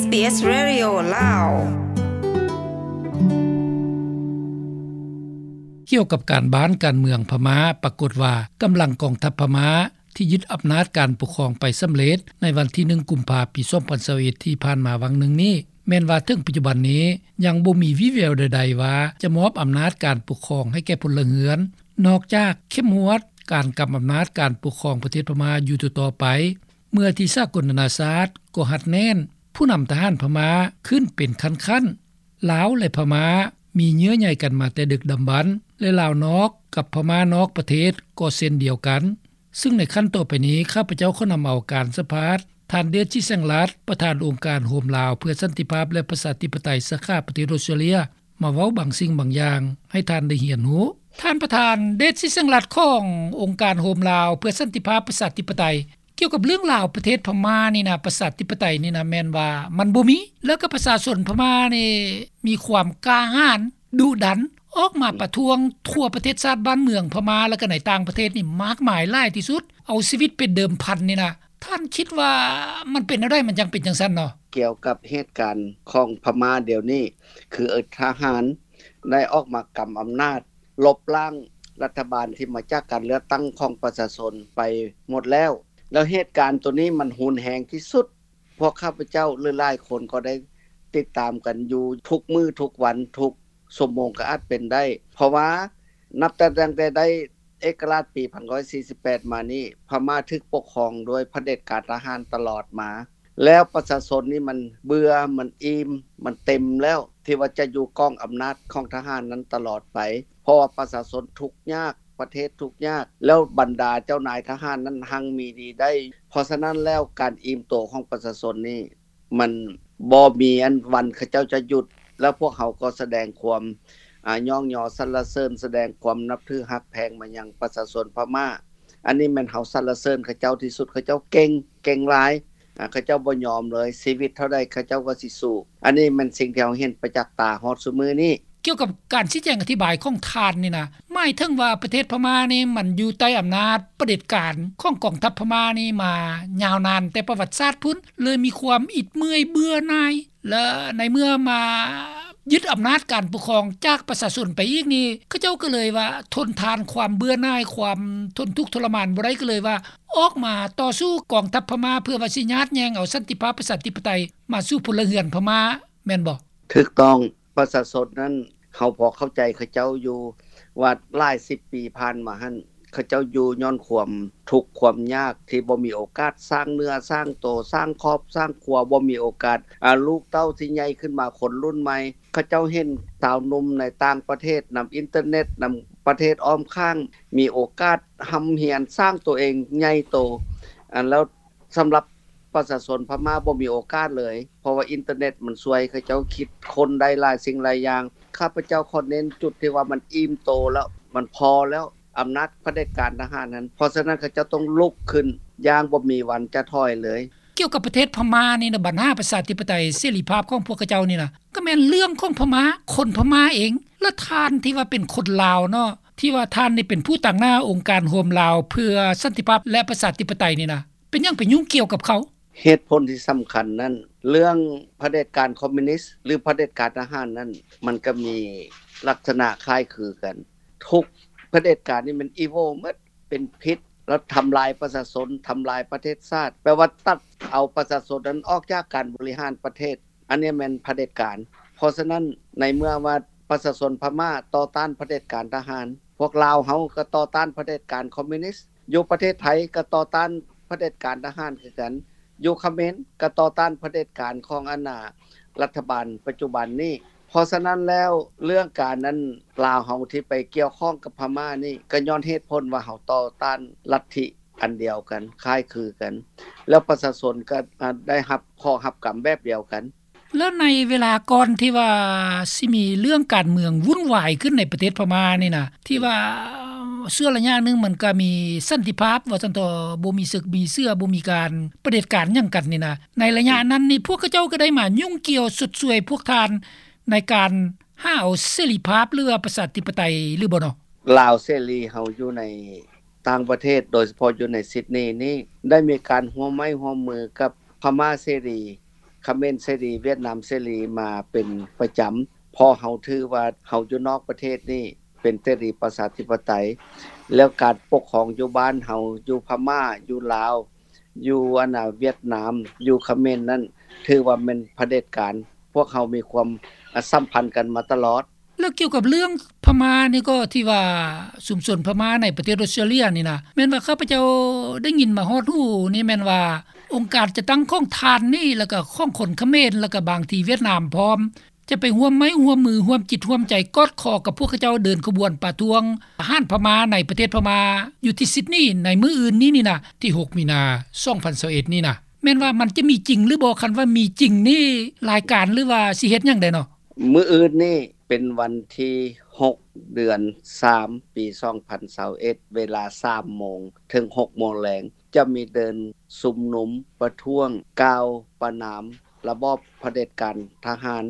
ສ ບີ ເອສ ເຣດິໂອ ລາວ. ກ່ຽວກັບການບ້ານການເມືອງພະມ້າ, ປາກົດວ່າກຳລັງກອງທັບພະມ້າທີ່ຍຶດອຳນາດການປົກຄອງໄປສຳເລັດໃນວັນທີໜຶ່ງ ກຸມພາ ປີສອງພັນຊາວເອັດ ທີ່ຜ່ານມາຫວ່າງໜຶ່ງນີ້, ແມ່ນວ່າເຖິງປັດຈຸບັນນີ້ຍັງບໍ່ມີວີ່ແວວໃດໆວ່າຈະມອບອຳນາດການປົກຄອງໃຫ້ແກ່ພົນລະເຮືອນ, ນອກຈາກເຂັ້ມງວດການກຳອຳນາດການປົກຄອງປະເທດພະມ້າຢູ່ຕໍ່ໆໄປ. ເມື່ອທີ່ສາກົນນານາຊາດກໍຮັດແໜ້ນ, ຜູ້ນຳທະຫານພະມ້າຂຶ້ນເປັນຂັ້ນໆ. ລາວ ແລະ ພະມ້າມີເຍື່ອໃຍກັນມາແຕ່ດຶກດຳບັນ ແລະ ລາວນອກກັບພະມ້ານອກປະເທດກໍເຊັ່ນດຽວກັນ, ຊຶ່ງໃນຂັ້ນຕໍ່ໄປນີ້ ຂ້າພະເຈົ້າຂໍນຳເອົາການສຳພາດທ່ານ ເດດ ຊິແສງລັດ ປະທານອົງການໂຮມລາວເພື່ອສັນຕິພາບ ແລະ ປະຊາທິປະໄຕ ສາຂາປະເທດອົດສະຕຣາເລຍ ມາເວົ້າບາງສິ່ງບາງຢ່າງໃຫ້ທ່ານໄດ້ຮຽນຮູ້. ທ່ານປະທານ ເດດ ຊິແສງລັດ ຂອງອົງການໂຮມລາວເພື່ອສັນຕິພາບ ປະຊາທິປະໄຕ, ກ່ຽວກັບເລື່ອງລາວປະເທດພະມ້ານີ້ນະ, ປະຊາທິປະໄຕນີ້ນະ, ແມ່ນວ່າມັນບໍ່ມີ, ແລ້ວກໍປະຊາຊົນພະມ້ານີ້ມີຄວາມກ້າຫານ, ດຸດັນ, ອອກມາປະທ້ວງທົ່ວປະເທດຊາດບ້ານເມືອງພະມ້າ ແລ້ວກໍໃນຕ່າງປະເທດນີ້ມາກມາຍຫຼາຍທີ່ສຸດ, ເອົາຊີວິດເປັນເດີມພັນນີ້ນະ. ທ່ານຄິດວ່າມັນເປັນແນວໃດ ມັນຈັ່ງເປັນຈັ່ງຊັ້ນເນາະ? ກ່ຽວກັບເຫດການຂອງພະມ້າດຽວນີ້, ຄືທະຫານໄດ້ອອກມາກຳອຳນາດ, ລົບລ້າງລັດຖະບານທີ່ມາຈາກການເລືອກຕັ້ງຂອງປະຊາຊົນໄປໝົດແລ້ວ. ແລ້ວເຫດການໂຕນີ້ມັນຮຸນແຮງທີ່ສຸດ. ພວກຂ້າພະເຈົ້າ ຫຼື ຫຼາຍຄົນກໍໄດ້ຕິດຕາມກັນຢູ່ທຸກມື້ທຸກວັນ, ທຸກຊົ່ວໂມງກໍອາດເປັນໄດ້. ເພາະວ່ານັບແຕ່ ຕັ້ງແຕ່ໄດ້ເອກະລາດປີໜຶ່ງພັນເກົ້າຮ້ອຍສີ່ສິບແປດມານີ້, ພະມ້າຖືກປົກຄອງໂດຍຜະເດັດການທະຫານຕະຫຼອດມາ. ແລ້ວປະຊາຊົນນີ້ມັນເບື່ອ, ມັນອີ່ມ, ມັນເຕັມແລ້ວ ທີ່ວ່າຈະຢູ່ກ້ອງອຳນາດຂອງທະຫານນັ້ນຕະຫຼອດໄປ, ເພາະວ່າປະຊາຊົນທຸກຍາກ, ປະເທດທຸກຍາກ, ແລ້ວບັນດາເຈົ້ານາຍທະຫານນັ້ນຮັ່ງມີດີໄດ້. ເພາະສະນັ້ນແລ້ວ ການອີ່ມໂຕຂອງປະຊາຊົນນີ້ ມັນບໍ່ມີອັນວັນເຂົາເຈົ້າຈະຢຸດ, ແລ້ວພວກເຮົາກໍສະແດງຄວາມ ອາ ຍ້ອງຍໍສັນລະເສີນ, ສະແດງຄວາມນັບຖືຮັກແພງມາຍັງປະຊາຊົນພະມ້າ. ອັນນີ້ແມ່ນເຮົາສັນລະເສີນເຂົາເຈົ້າທີ່ສຸດ, ເຂົາເຈົ້າເກັ່ງ, ເກັ່ງຫຼາຍ, ອາ ເຂົາເຈົ້າບໍ່ຍອມເລີຍ, ຊີວິດເທົ່າໃດເຂົາເຈົ້າກໍຊິສູ້. ອັນນີ້ແມ່ນສິ່ງທີ່ເຮົາເຫັນປະຈັກຕາຮອດຊຸມື້ນີ້. ກ່ຽວກັບການຊີ້ແຈງອະທິບາຍຂອງທ່ານນີ້ນະ, ໝາຍເຖິງວ່າປະເທດພະມ້ານີ້ມັນຢູ່ໃຕ້ອຳນາດຜະເດັດການຂອງກອງທັບພະມ້ານີ້ມາຍາວນານແຕ່ປະຫວັດສາດພຸ້ນ, ເລີຍມີຄວາມອິດເມື່ອຍເບື່ອໜ່າຍ ແລະ ໃນເມື່ອມາຍຶດອຳນາດການປົກຄອງຈາກປະຊາຊົນໄປອີກນີ້, ເຂົາເຈົ້າກໍເລີຍວ່າທົນທານຄວາມເບື່ອໜ່າຍ, ຄວາມທົນທຸກທໍລະມານບໍ່ໄດ້, ກໍເລີຍວ່າອອກມາຕໍ່ສູ້ກອງທັບພະມ້າ ເພື່ອວ່າຊິຍາດແຍ່ງເອົາສັນຕິພາບປະຊາທິປະໄຕມາສູ່ພົນລະເຮືອນພະມ້າ, ແມ່ນບໍ່? ຖືກຕ້ອງ. ປະຊາຊົນນັ້ນ ເຮົາພໍເຂົ້າໃຈເຂົາເຈົ້າຢູ່ວ່າຫຼາຍສິບປີຜ່ານມາຫັ້ນ ເຂົາເຈົ້າຢູ່ຍ້ອນຄວາມທຸກຄວາມຍາກ ທີ່ບໍ່ມີໂອກາດສ້າງເນື້ອສ້າງໂຕ, ສ້າງຄອບສ້າງຄົວ, ບໍ່ມີໂອກາດ ອາ ລູກເຕົ້າທີ່ໃຫຍ່ຂຶ້ນມາ ຄົນລຸ້ນໃໝ່. ເຂົາເຈົ້າເຫັນຊາວໜຸ່ມໃນຕ່າງປະເທດ ນຳອິນເຕີເນັດ, ນຳປະເທດອ້ອມຂ້າງ ມີໂອກາດຮ່ຳຮຽນ, ສ້າງໂຕເອງໃຫຍ່ໂຕ, ອັນ ແລ້ວ ສຳລັບປະຊາຊົນພະມ້າບໍ່ມີໂອກາດເລີຍ, ເພາະວ່າອິນເຕີເນັດມັນຊ່ວຍເຂົາເຈົ້າຄິດຄົ້ນໄດ້ຫຼາຍສິ່ງຫຼາຍຢ່າງ. ຂ້າພະເຈົ້າຂໍເນັ້ນຈຸດທີ່ວ່າມັນອີ່ມໂຕແລ້ວ, ມັນພໍແລ້ວ, ອຳນາດຜະເດັດການທະຫານນັ້ນ. ເພາະສະນັ້ນ ເຂົາເຈົ້າຕ້ອງລຸກຂຶ້ນຢ່າງບໍ່ມີວັນຈະຖອຍເລີຍ. ກ່ຽວກັບປະເທດພະມ້ານີ້ນະ, ບັນຫາປະຊາທິປະໄຕເສລີພາບຂອງພວກເຂົາເຈົ້ານີ້ນະ, ກໍແມ່ນເລື່ອງຂອງພະມ້າ, ຄົນພະມ້າເອງ. ແລະ ທ່ານທີ່ວ່າເປັນຄົນລາວເນາະ, ທີ່ວ່າທ່ານນີ້ເປັນຜູ້ຕາງໜ້າອົງການໂຮມລາວເພື່ອສັນຕິພາບ ແລະ ປະຊາທິປະໄຕນີ້ນະ, ເປັນຫຍັງໄປຫຍຸ້ງກ່ຽວກັບເຂົາ? ເຫດຜົນທີ່ສຳຄັນນັ້ນ, ເລື່ອງຜະເດັດການຄອມມິວນິດ ຫຼື ຜະເດັດການທະຫານນັ້ນ, ມັນກໍມີລັກສະນະຄ້າຍຄືກັນ. ທຸກຜະເດັດການນີ້ມັນອີວິວໝົດ, ເປັນພິດ, ແລ້ວທຳລາຍປະຊາຊົນ, ທຳລາຍປະເທດຊາດ, ແປວ່າຕັດເອົາປະຊາຊົນນັ້ນອອກຈາກການບໍລິຫານປະເທດ. ອັນນີ້ແມ່ນຜະເດັດການ. ເພາະສະນັ້ນ, ໃນເມື່ອວ່າປະຊາຊົນພະມ້າຕໍ່ຕ້ານຜະເດັດການທະຫານ, ພວກລາວເຮົາກໍຕໍ່ຕ້ານຜະເດັດການຄອມມິວນິດ, ຢູ່ປະເທດໄທກໍຕໍ່ຕ້ານຜະເດັດການທະຫານຄືກັນ, ຢູ່ຂະເໝນກໍຕໍ່ຕ້ານຜະເດັດການຂອງອັນນ່າ ລັດຖະບານປັດຈຸບັນນີ້. ເພາະສະນັ້ນແລ້ວ ເລື່ອງການອັນລາວເຮົາທີ່ໄປກ່ຽວຂ້ອງກັບພະມ້ານີ້ ກໍຍ້ອນເຫດຜົນວ່າເຮົາຕໍ່ຕ້ານລັດທິອັນດຽວກັນ, ຄ້າຍຄືກັນ, ແລ້ວປະຊາຊົນກໍ ອາ ໄດ້ຮັບເຄາະຮັບກຳແບບດຽວກັນ. ແລ້ວໃນເວລາກ່ອນທີ່ວ່າຊິມີເລື່ອງການເມືອງວຸ່ນວາຍຂຶ້ນໃນປະເທດພະມ້ານີ້ນະ, ທີ່ວ່າຊົ່ວໄລຍະໜຶ່ງມັນກໍມີສັນຕິພາບ ວ່າຊັ້ນເຖາະ, ບໍ່ມີເສິກມີເສື້ອ, ບໍ່ມີການປະເດັດການຫຍັງກັນນີ້ນະ, ໃນໄລຍະນັ້ນນີ້ ພວກເຂົາເຈົ້າກໍໄດ້ມາຫຍຸ້ງກ່ຽວຊົດຊ່ວຍພວກທ່ານໃນການຫາເອົາເສລີພາບ ຫຼືວ່າປະຊາທິປະໄຕ ຫຼືບໍ່ເນາະ? ລາວເສລີເຮົາຢູ່ໃນຕ່າງປະເທດ, ໂດຍສະເພາະຢູ່ໃນຊິດນີນີ້ ໄດ້ມີການຮ່ວມໄມ້ຮ່ວມມືກັບພະມ້າເສລີ ຂເມນເສລີ ຫວຽດນາມເສລີມາເປັນປະຈຳ ເພາະເຮົາຖືວ່າເຮົາຢູ່ນອກປະເທດນີ້ເປັນເສລີປະຊາທິປະໄຕ ແລ້ວການປົກຄອງຢູ່ບ້ານເຮົາ ຢູ່ພະມ້າ ຢູ່ລາວ ຢູ່ອັນນ່າຫວຽດນາມ ຢູ່ຂະເມນນັ້ນ ຖືວ່າແມ່ນຜະເດັດການ ພວກເຮົາມີຄວາມ ອາ ສຳພັນກັນມາຕະຫຼອດ. ແລ້ວກ່ຽວກັບເລື່ອງພະມ້ານີ້ກໍ ທີ່ວ່າຊຸມຊົນພະມ້າໃນປະເທດອອສເຕຣເລຍນີ້ນະ ແມ່ນວ່າຂ້າພະເຈົ້າໄດ້ຍິນມາຮອດຫູນີ້ ແມ່ນວ່າອົງການຈັດຕັ້ງຂອງທ່ານນີ້ ແລ້ວກໍຂອງຄົນຂະເມນ ແລ້ວກໍບາງທີຫວຽດນາມພ້ອມ ຈະໄປຮ່ວມໄມ້ຮ່ວມມື ຮ່ວມຈິດຮ່ວມໃຈ ກອດຄໍກັບພວກເຂົາເຈົ້າເດີນຂະບວນປະທ້ວງທະຫານພະມ້າໃນປະເທດພະມ້າ ຢູ່ທີ່ຊິດນີໃນມື້ອື່ນນີ້ນີ້ນະ ທີຫົກ ມີນາ ສອງພັນຊາວເອັດນີ້ນະ ແມ່ນວ່າມັນຈະມີຈິງຫຼືບໍ່? ຄັນວ່າມີຈິງນີ້ ລາຍການ ຫຼືວ່າຊິເຮັດຫຍັງແດ່ເນາະ? ມື້ອື່ນນີ້ເປັນວັນທີຫົກ ເດືອນສາມ ປີສອງພັນຊາວເອັດ ເວລາສາມໂມງເຖິງຫົກໂມງແລງ ຈະມີເດີນຊຸມນຸມປະທ້ວງ ກ່າວປະນາມລະບອບຜະເດັດການທະຫານ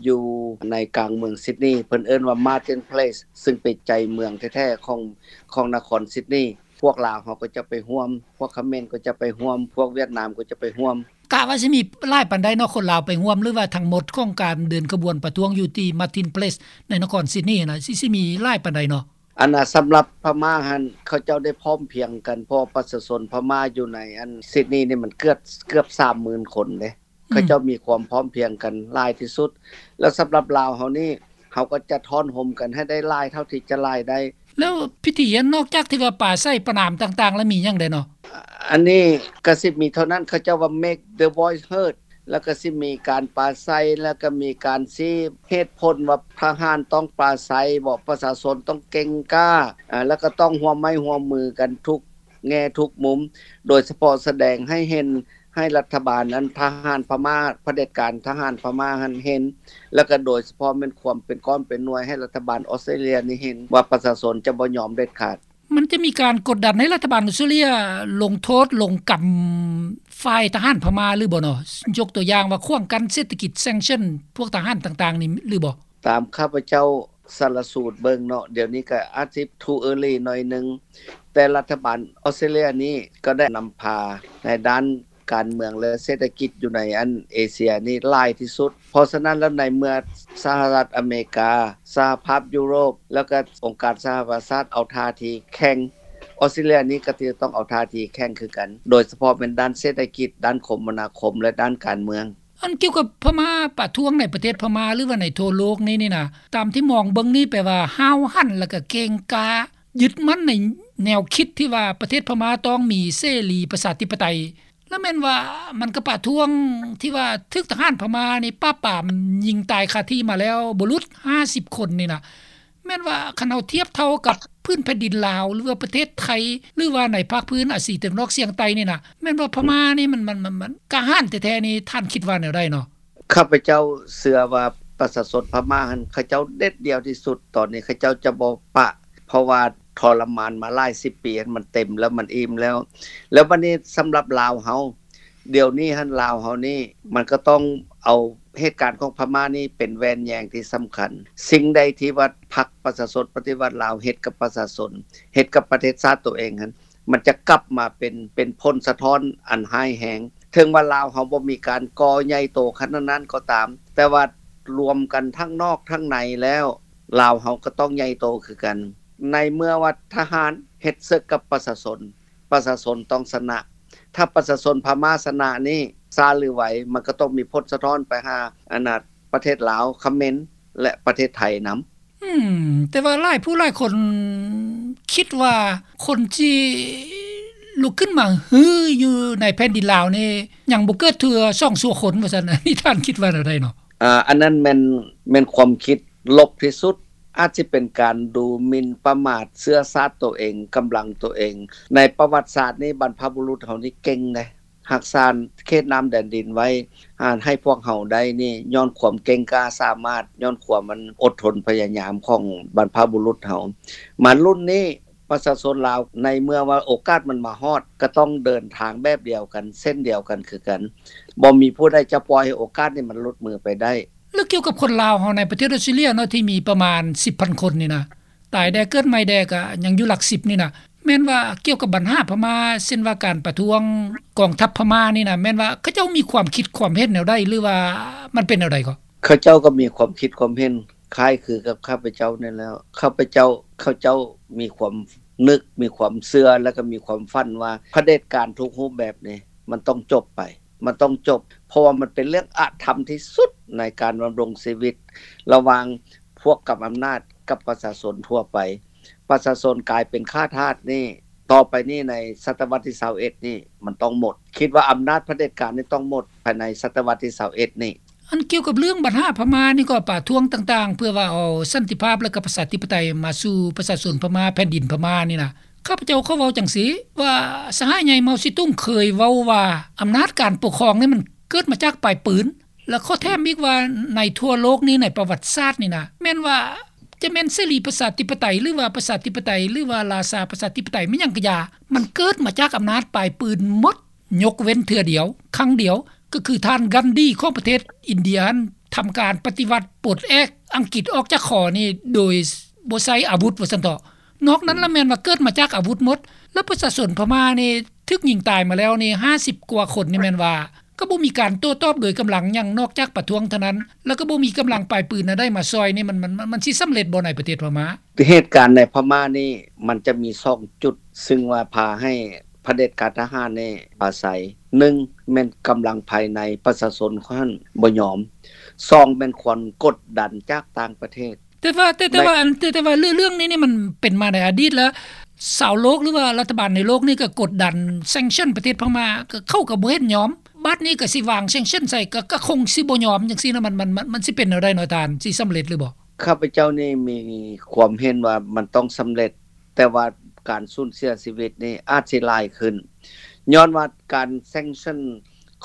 ຢູ່ໃນກາງເມືອງຊິດນີ ເພິ່ນເອີ້ນວ່າ Martin Place ຊຶ່ງເປັນໃຈເມືອງແທ້ໆ ຂອງ ຂອງນະຄອນຊິດນີ. ພວກລາວເຮົາກໍຈະໄປຮ່ວມ ພວກຂະເໝນກໍຈະໄປຮ່ວມ ພວກຫວຽດນາມກໍຈະໄປຮ່ວມ. ກະວ່າຊິມີຫຼາຍປານໃດເນາະ ຄົນລາວໄປຮ່ວມ ຫຼືວ່າທັງໝົດຂອງການເດີນຂະບວນປະທ້ວງຢູ່ທີ່ Martin Place ໃນນະຄອນຊິດນີນະ ຊິ ຊິມີຫຼາຍປານໃດເນາະ? ອັນນ່າ ສຳລັບພະມ້າຫັ້ນ ເຂົາເຈົ້າໄດ້ພ້ອມພຽງກັນ ເພາະປະຊາຊົນພະມ້າຢູ່ໃນອັນຊິດນີນີ້ ມັນເກືອບ ເກືອບສາມໝື່ນຄົນເດ້. ເຂົາເຈົ້າມີຄວາມພ້ອມພຽງກັນຫຼາຍທີ່ສຸດ ແລ້ວສຳລັບລາວເຮົານີ້ ເຮົາກໍຈະທ້ອນໂຮມກັນໃຫ້ໄດ້ຫຼາຍເທົ່າທີ່ຈະຫຼາຍໄດ້. ແລ້ວພິທີຫັ້ນ ນອກຈາກທີ່ວ່າປາໄສປະນາມຕ່າງໆ ແລ້ວມີຫຍັງແດ່ເນາະ? ອັນນີ້ກໍຊິມີເທົ່ານັ້ນ ເຂົາເຈົ້າວ່າ make the voice heard ແລ້ວກໍຊິມີການປາໄສ ແລ້ວກໍມີການຊີ້ເຫດຜົນວ່າທະຫານຕ້ອງປາໄສບໍ ປະຊາຊົນຕ້ອງເກັ່ງກ້າ ອາ ແລ້ວກໍຕ້ອງຮ່ວມໄມ້ຮ່ວມມືກັນທຸກແງ່ທຸກມຸມ ໂດຍສະເພາະສະແດງໃຫ້ເຫັນ ໃຫ້ລັດຖະບານນັ້ນ ທະຫານພະມ້າ ຜະເດັດການທະຫານພະມ້າຫັ້ນເຫັນ ແລ້ວກໍໂດຍສະເພາະແມ່ນຄວາມເປັນກ້ອນເປັນໜ່ວຍ ໃຫ້ລັດຖະບານອອສເຕຣເລຍນີ້ເຫັນວ່າປະຊາຊົນຈະບໍ່ຍອມເດັດຂາດ. ມັນຈະມີການກົດດັນໃຫ້ລັດຖະບານອອສເຕຣເລຍລົງໂທດ ລົງກຳຝ່າຍທະຫານພະມ້າຫຼືບໍ່ເນາະ? ຍົກຕົວຢ່າງວ່າຂວາງກັ້ນເສດຖະກິດ sanction ພວກທະຫານຕ່າງໆນີ້ຫຼືບໍ່? ຕາມຂ້າພະເຈົ້າສາລະສູດເບິ່ງເນາະ ດຽວນີ້ກໍອາດຊິ too early ໜ້ອຍໜຶ່ງ ແຕ່ລັດຖະບານອອສເຕຣເລຍນີ້ກໍໄດ້ນຳພາໃນດ້ານການເມືອງ ແລະ ເສດຖະກິດຢູ່ໃນອັນເອເຊຍນີ້ຫຼາຍທີ່ສຸດ. ເພາະສະນັ້ນແລ້ວ ໃນເມື່ອສະຫະລັດອາເມລິກາ, ສະຫະພາບຢູໂຣບ ແລ້ວກໍອົງການສະຫະປະຊາຊາດເອົາທ່າທີແຂງ, ອອສເຕຣເລຍນີ້ກໍຈະຕ້ອງເອົາທ່າທີແຂງຄືກັນ, ໂດຍສະເພາະແມ່ນດ້ານເສດຖະກິດ, ດ້ານຄົມມະນາຄົມ ແລະ ດ້ານການເມືອງ. ອັນກ່ຽວກັບພະມ້າປະທ້ວງໃນປະເທດພະມ້າ ຫຼືວ່າໃນທົ່ວໂລກນີ້ນີ້ນະ ຕາມທີ່ມອງເບິ່ງນີ້ ແປວ່າຫ້າວຫັນ ແລ້ວກໍເກັ່ງກ້າ ຍຶດໝັ້ນໃນແນວຄິດທີ່ວ່າປະເທດພະມ້າຕ້ອງມີເສລີປະຊາທິປະໄຕ ແລ້ວແມ່ນວ່າມັນກໍປະທ້ວງທີ່ວ່າຖືກທະຫານພະມ້ານີ້ປາບປາມຍິງຕາຍຄາທີ່ມາແລ້ວບໍ່ຫຼຸດຫ້າສິບຄົນນີ້ນະ. ແມ່ນວ່າຄັນເຮົາທຽບເທົ່າກັບພື້ນແຜ່ນດິນລາວ ຫຼືວ່າປະເທດໄທ ຫຼືວ່າໃນພາກພື້ນອາຊີຕາເວັນອອກສຽງໃຕ້ນີ້ນະ ແມ່ນວ່າພະມ້ານີ້ມັນ ມັນ ມັນ ມັນກ້າຫານແທ້ໆນີ້ ທ່ານຄິດວ່າແນວໃດເນາະ? ຂ້າພະເຈົ້າເຊື່ອວ່າປະຊາຊົນພະມ້າຫັ້ນ ເຂົາເຈົ້າເດັດດ່ຽວທີ່ສຸດ. ຕອນນີ້ເຂົາເຈົ້າຈະບໍ່ປະ ເພາະວ່າທໍລະມານມາຫຼາຍສິບປີ ມັນເຕັມແລ້ວ ມັນອີ່ມແລ້ວ. ແລ້ວບັດນີ້ສຳລັບລາວເຮົາ ດຽວນີ້ຫັ້ນ ລາວເຮົານີ້ ມັນກໍຕ້ອງເອົາເຫດການຂອງພະມ້ານີ້ເປັນແວ່ນແຍງທີ່ສຳຄັນ. ສິ່ງໃດທີ່ວ່າພັກປະຊາຊົນປະຕິວັດລາວເຮັດກັບປະຊາຊົນ, ເຮັດກັບປະເທດຊາດໂຕເອງຫັ້ນ, ມັນຈະກັບມາເປັນ ເປັນຜົນສະທ້ອນອັນຮ້າຍແຮງ. ເຖິງວ່າລາວເຮົາບໍ່ມີການກໍ່ໃຫຍ່ໂຕຂະໜາດນັ້ນກໍຕາມ, ແຕ່ວ່າລວມກັນທັງນອກທັງໃນແລ້ວ, ລາວເຮົາກໍຕ້ອງໃຫຍ່ໂຕຄືກັນ. ໃນເມື່ອວ່າທະຫານເຮັດເສິກກັບປະຊາຊົນ, ປະຊາຊົນຕ້ອງຊະນະ. ຖ້າປະຊາຊົນພະມ້າຊະນະນີ້ ຊ້າຫຼືໄວ ມັນກໍຕ້ອງມີຜົນສະທ້ອນໄປຫາ ອັນນ່າ ປະເທດລາວ, ຂະເໝນ ແລະ ປະເທດໄທນຳ. ອືມ ແຕ່ວ່າຫຼາຍຜູ້ຫຼາຍຄົນຄິດວ່າ ຄົນທີ່ລຸກຂຶ້ນມາຮືຢູ່ໃນແຜ່ນດິນລາວນີ້ ຍັງບໍ່ເກີດເທື່ອສອງຊົ່ວຄົນ ວ່າຊັ້ນ. ອັນນີ້ທ່ານຄິດວ່າແນວໃດເນາະ? ອາ ອັນນັ້ນແມ່ນ ແມ່ນຄວາມຄິດລົບທີ່ສຸດ. ອາດຊິເປັນການດູໝິ່ນປະໝາດເຊື້ອຊາດໂຕເອງ, ກຳລັງໂຕເອງ. ໃນປະຫວັດສາດນີ້ ບັນພະບຸລຸດເຮົານີ້ເກັ່ງເດ້. ຮັກສາເຂດນ້ຳແດນດິນໄວ້ ອາ ໃຫ້ພວກເຮົາໄດ້ນີ້ ຍ້ອນຄວາມເກັ່ງກ້າສາມາດ, ຍ້ອນຄວາມອັນອົດທົນພະຍາຍາມຂອງບັນພະບຸລຸດເຮົາ. ມາລຸ້ນນີ້ ປະຊາຊົນລາວ ໃນເມື່ອວ່າໂອກາດມັນມາຮອດ ກໍຕ້ອງເດີນທາງແບບດຽວກັນ, ເສັ້ນດຽວກັນຄືກັນ. ບໍ່ມີຜູ້ໃດຈະປ່ອຍໃຫ້ໂອກາດນີ້ມັນຫຼຸດມືໄປໄດ້. ແລ້ວກ່ຽວກັບຄົນລາວເຮົາໃນປະເທດອອສເຕຣເລຍເນາະ ທີ່ມີປະມານສິບພັນຄົນນີ້ນະ, ຕາຍແດ່ເກີດໃໝ່ແດ່ກໍຍັງຢູ່ຫຼັກສິບນີ້ນະ, ແມ່ນວ່າກ່ຽວກັບບັນຫາພະມ້າ ເຊັ່ນວ່າການປະທ້ວງກອງທັບພະມ້ານີ້ນະ ແມ່ນວ່າເຂົາເຈົ້າມີຄວາມຄິດຄວາມເຫັນແນວໃດ ຫຼືວ່າມັນເປັນແນວໃດກໍ? ເຂົາເຈົ້າກໍມີຄວາມຄິດຄວາມເຫັນຄ້າຍຄືກັບຂ້າພະເຈົ້ານີ້ແຫຼະ. ຂ້າພະເຈົ້າ ເຂົາເຈົ້າມີຄວາມນຶກ ມີຄວາມເຊື່ອ ແລະກໍມີຄວາມຝັນວ່າຜະເດັດການທຸກຮູບແບບນີ້ ມັນຕ້ອງຈົບໄປ ມັນຕ້ອງຈົບ ເພາະວ່າມັນເປັນເລື່ອງອະທຳທີ່ສຸດໃນການດຳລົງຊີວິດ ລະຫວ່າງພວກກຳອຳນາດກັບປະຊາຊົນທົ່ວໄປ. ປະຊາຊົນກາຍເປັນຂ້າທາດນີ້ ຕໍ່ໄປນີ້ໃນສະຕະວັດທີຊາວເອັດນີ້ ມັນຕ້ອງໝົດ. ຄິດວ່າອຳນາດຜະເດັດການນີ້ຕ້ອງໝົດພາຍໃນສະຕະວັດທີຊາວເອັດນີ້. ອັນກ່ຽວກັບເລື່ອງບັນຫາພະມ້ານີ້ກໍປະທ້ວງຕ່າງໆ ເພື່ອວ່າເອົາສັນຕິພາບ ແລະກໍປະຊາທິປະໄຕມາສູ່ປະຊາຊົນພະມ້າ ແຜ່ນດິນພະມ້ານີ້ນະ ຂ້າພະເຈົ້າຂໍເວົ້າຈັ່ງຊີ້ ວ່າສະຫາຍໃຫຍ່ເມົາຊີຕຸງເຄີຍເວົ້າວ່າ ອຳນາດການປົກຄອງນີ້ມັນເກີດມາຈາກປາຍປືນ. ແລະຂໍແຖມອີກວ່າ ໃນທົ່ວໂລກນີ້ ໃນປະຫວັດສາດນີ້ນະ ແມ່ນວ່າຈະແມ່ນເສລີປະຊາທິປະໄຕ ຫຼືວ່າປະຊາທິປະໄຕ ຫຼືວ່າລາຊາປະຊາທິປະໄຕ ແມ່ນຫຍັງກະຢ່າ ມັນເກີດມາຈາກອຳນາດປາຍປືນໝົດ. ຍົກເວັ້ນເທື່ອດຽວ ຄັ້ງດຽວ ກໍຄືທ່ານກັນດີຂອງປະເທດອິນເດຍຫັ້ນ ທຳການປະຕິວັດປົດແອກອັງກິດອອກຈາກຄໍນີ້ໂດຍບໍ່ໃຊ້ອາວຸດວ່າຊັ້ນເຖາະ. ນອກນັ້ນລະແມ່ນວ່າເກີດມາຈາກອາວຸດໝົດ. ແລ້ວປະຊາຊົນພະມ້ານີ້ຖືກຍິງຕາຍມາແລ້ວນີ້ຫ້າສິບກວ່າຄົນນີ້ ແມ່ນວ່າກໍບໍ່ມີການໂຕ້ຕອບໂດຍກຳລັງຫຍັງ ນອກຈາກປະທ້ວງເທົ່ານັ້ນ ແລ້ວກໍບໍ່ມີກຳລັງປາຍປືນອັນໃດມາຊ່ອຍນີ້ ມັນ ມັນ ມັນ ມັນຊິສຳເລັດບໍ່ໃນປະເທດພະມ້າ? ເຫດການໃນພະມ້ານີ້ ມັນຈະມີສອງຈຸດ ຊຶ່ງວ່າພາໃຫ້ຜະເດັດການທະຫານນີ້ອາໄສ. ໜຶ່ງ ແມ່ນກຳລັງພາຍໃນປະຊາຊົນຫັ້ນບໍ່ຍອມ. ສອງ ແມ່ນຄວາມກົດດັນຈາກຕ່າງປະເທດ. ແຕ່ວ່າ ແຕ່ ແຕ່ ໃນ ວ່າ ອັນ ແຕ່ ແຕ່ວ່າເລື່ອງ ເລື່ອງນີ້ນີ້ມັນເປັນມາໃນອະດີດແລ້ວ ຊາວໂລກ ຫຼືວ່າລັດຖະບານໃນໂລກນີ້ກໍກົດດັນ sanction ປະເທດພະມ້າ ກໍເຂົາກໍບໍ່ເຫັນຍອມ. ບັດນີ້ກໍຊິວາງ sanction ໃສ່ ກໍ ກໍຄົງຊິບໍ່ຍອມຈັ່ງຊີ້ນະ ມັນ ມັນ ມັນ ມັນຊິເປັນແນວໃດເນາະທ່ານ ຊິສຳເລັດຫຼືບໍ່? ຂ້າພະເຈົ້ານີ້ມີຄວາມເຫັນວ່າມັນຕ້ອງສຳເລັດ ແຕ່ວ່າການສູນເສຍຊີວິດນີ້ອາດຊິຫຼາຍຂຶ້ນ ຍ້ອນວ່າການ sanction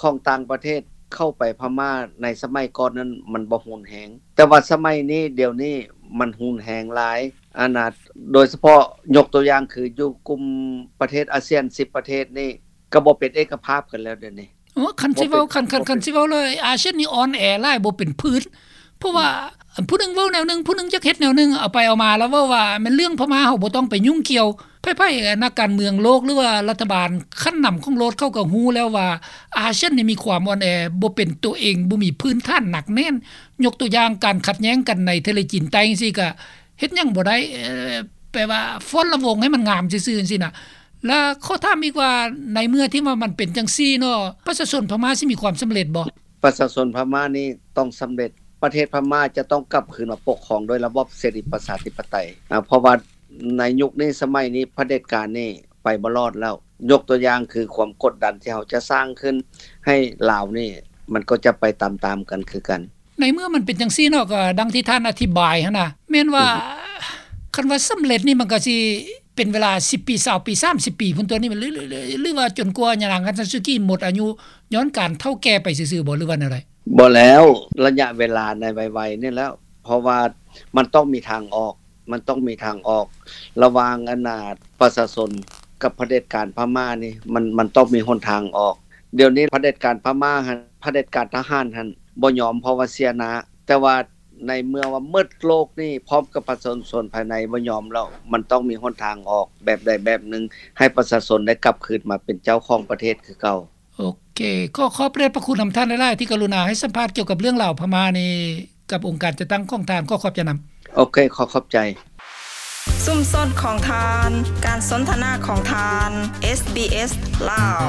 ຂອງຕ່າງປະເທດເຂົ້າໄປພະມ້າໃນສະໄໝກ່ອນນັ້ນມັນບໍ່ຮຸນແຮງ ແຕ່ວ່າສະໄໝນີ້ ດຽວນີ້ມັນຮຸນແຮງຫຼາຍ. ອັນນ່າ ໂດຍສະເພາະຍົກຕົວຢ່າງຄືຢູ່ກຸ່ມປະເທດອາຊຽນສິບປະເທດນີ້ ກໍບໍ່ເປັນເອກະພາບກັນແລ້ວດຽວນີ້. ໂອ້ ຄັນຊິເວົ້າ ຄັນ ຄັນ ຄັນຊິເວົ້າເລີຍ ອາຊຽນນີ້ອ່ອນແອຫຼາຍ ບໍ່ເປັນພື້ນ ເພາະວ່າ ອືມ ຜູ້ໜຶ່ງເວົ້າແນວໜຶ່ງ ຜູ້ໜຶ່ງຢາກເຮັດແນວໜຶ່ງ ເອົາໄປເອົາມາແລ້ວເວົ້າວ່າແມ່ນເລື່ອງພະມ້າ ເຮົາບໍ່ຕ້ອງໄປຫຍຸ້ງກ່ຽວ. ໃຜໆ ນັກການເມືອງໂລກ ຫຼືວ່າລັດຖະບານຂັ້ນນຳຂອງໂລກ ເຂົາກໍຮູ້ແລ້ວວ່າ ອາຊຽນນີ້ມີຄວາມອ່ອນແອ ບໍ່ເປັນຕົວເອງ ບໍ່ມີພື້ນຖານໜັກແໜ້ນ. ຍົກຕົວຢ່າງ ການຂັດແຍ່ງກັນໃນທະເລຈີນໃຕ້ຈັ່ງຊີ້ ກໍເຮັດຫຍັງບໍ່ໄດ້ ເອີ ແປວ່າຟ້ອນລຳວົງໃຫ້ມັນງາມຊື່ໆ ຈັ່ງຊີ້ນະ. ແລະ ຂໍຖາມອີກວ່າ ໃນເມື່ອທີ່ວ່າມັນເປັນຈັ່ງຊີ້ເນາະ ປະຊາຊົນພະມ້າຊິມີຄວາມສຳເລັດບໍ່? ປະຊາຊົນພະມ້ານີ້ຕ້ອງສຳເລັດ. ປະເທດພະມ້າຈະຕ້ອງກັບຄືນມາປົກຄອງໂດຍລະບອບເສລີປະຊາທິປະໄຕ ເພາະວ່າໃນຍຸກນີ້ສະໄໝນີ້ຜະເດັດການນີ້ໄປບໍ່ລອດແລ້ວ. ຍົກຕົວຢ່າງຄືຄວາມກົດດັນທີ່ເຮົາຈະສ້າງຂຶ້ນໃຫ້ລາວນີ້ ມັນກໍຈະໄປຕາມໆກັນຄືກັນ. ໃນເມື່ອມັນເປັນຈັ່ງຊີ້ເນາະ ກໍດັ່ງທີ່ທ່ານອະທິບາຍຫັ້ນນະ ແມ່ນວ່າ ອືຮຶ ຄັນວ່າສຳເລັດນີ້ ມັນກໍຊິເປັນເວລາສິບປີ ຊາວປີ ສາມສິບປີພຸ້ນຕົວະນີ້ ຫຼື ຫຼື ຫຼື ຫຼືວ່າຈົນກວ່າຍານາງ ຄັນຊາຊູກິ ໝົດອາຍຸຍ້ອນການເຖົ້າແກ່ໄປຊື່ໆບໍ່ ຫຼືວ່າແນວໃດ? ບໍ່ແລ້ວ ໄລຍະເວລາໃນໄວໆນີ້ແລ້ວ ເພາະວ່າມັນຕ້ອງມີທາງອອກ ມັນຕ້ອງມີທາງອອກ ລະຫວ່າງອັນນ່າ ປະຊາຊົນກັບຜະເດັດການພະມ້ານີ້ ມັນ ມັນຕ້ອງມີຫົນທາງອອກ. ດຽວນີ້ຜະເດັດການພະມ້າຫັ້ນ ຜະເດັດການທະຫານຫັ້ນບໍ່ຍອມ ເພາະວ່າເສຍໜ້າ ແຕ່ວ່າໃນເມື່ອວ່າໝົດໂລກນີ້ ພ້ອມກັບປະຊາຊົນພາຍໃນບໍ່ຍອມແລ້ວ ມັນຕ້ອງມີຫົນທາງອອກແບບໃດແບບໜຶ່ງ ໃຫ້ປະຊາຊົນໄດ້ກັບຄືນມາເປັນເຈົ້າຂອງປະເທດຄືເກົ່າ. ໂອເຄ ຂໍຂອບພະເດດພະຄຸນນຳທ່ານຫຼາຍໆ ທີ່ກະລຸນາໃຫ້ສຳພາດກ່ຽວກັບເລື່ອງລາວພະມ້ານີ້ ກັບອົງການຈັດຕັ້ງຂອງທ່ານ. ຂໍຂອບໃຈນຳ. ໂອເຄ ຂໍຂອບໃຈ. ຊຸມຊົນຂອງທ່ານ, ການສົນທະນາຂອງທ່ານ, ເອສບີເອສ ລາວ.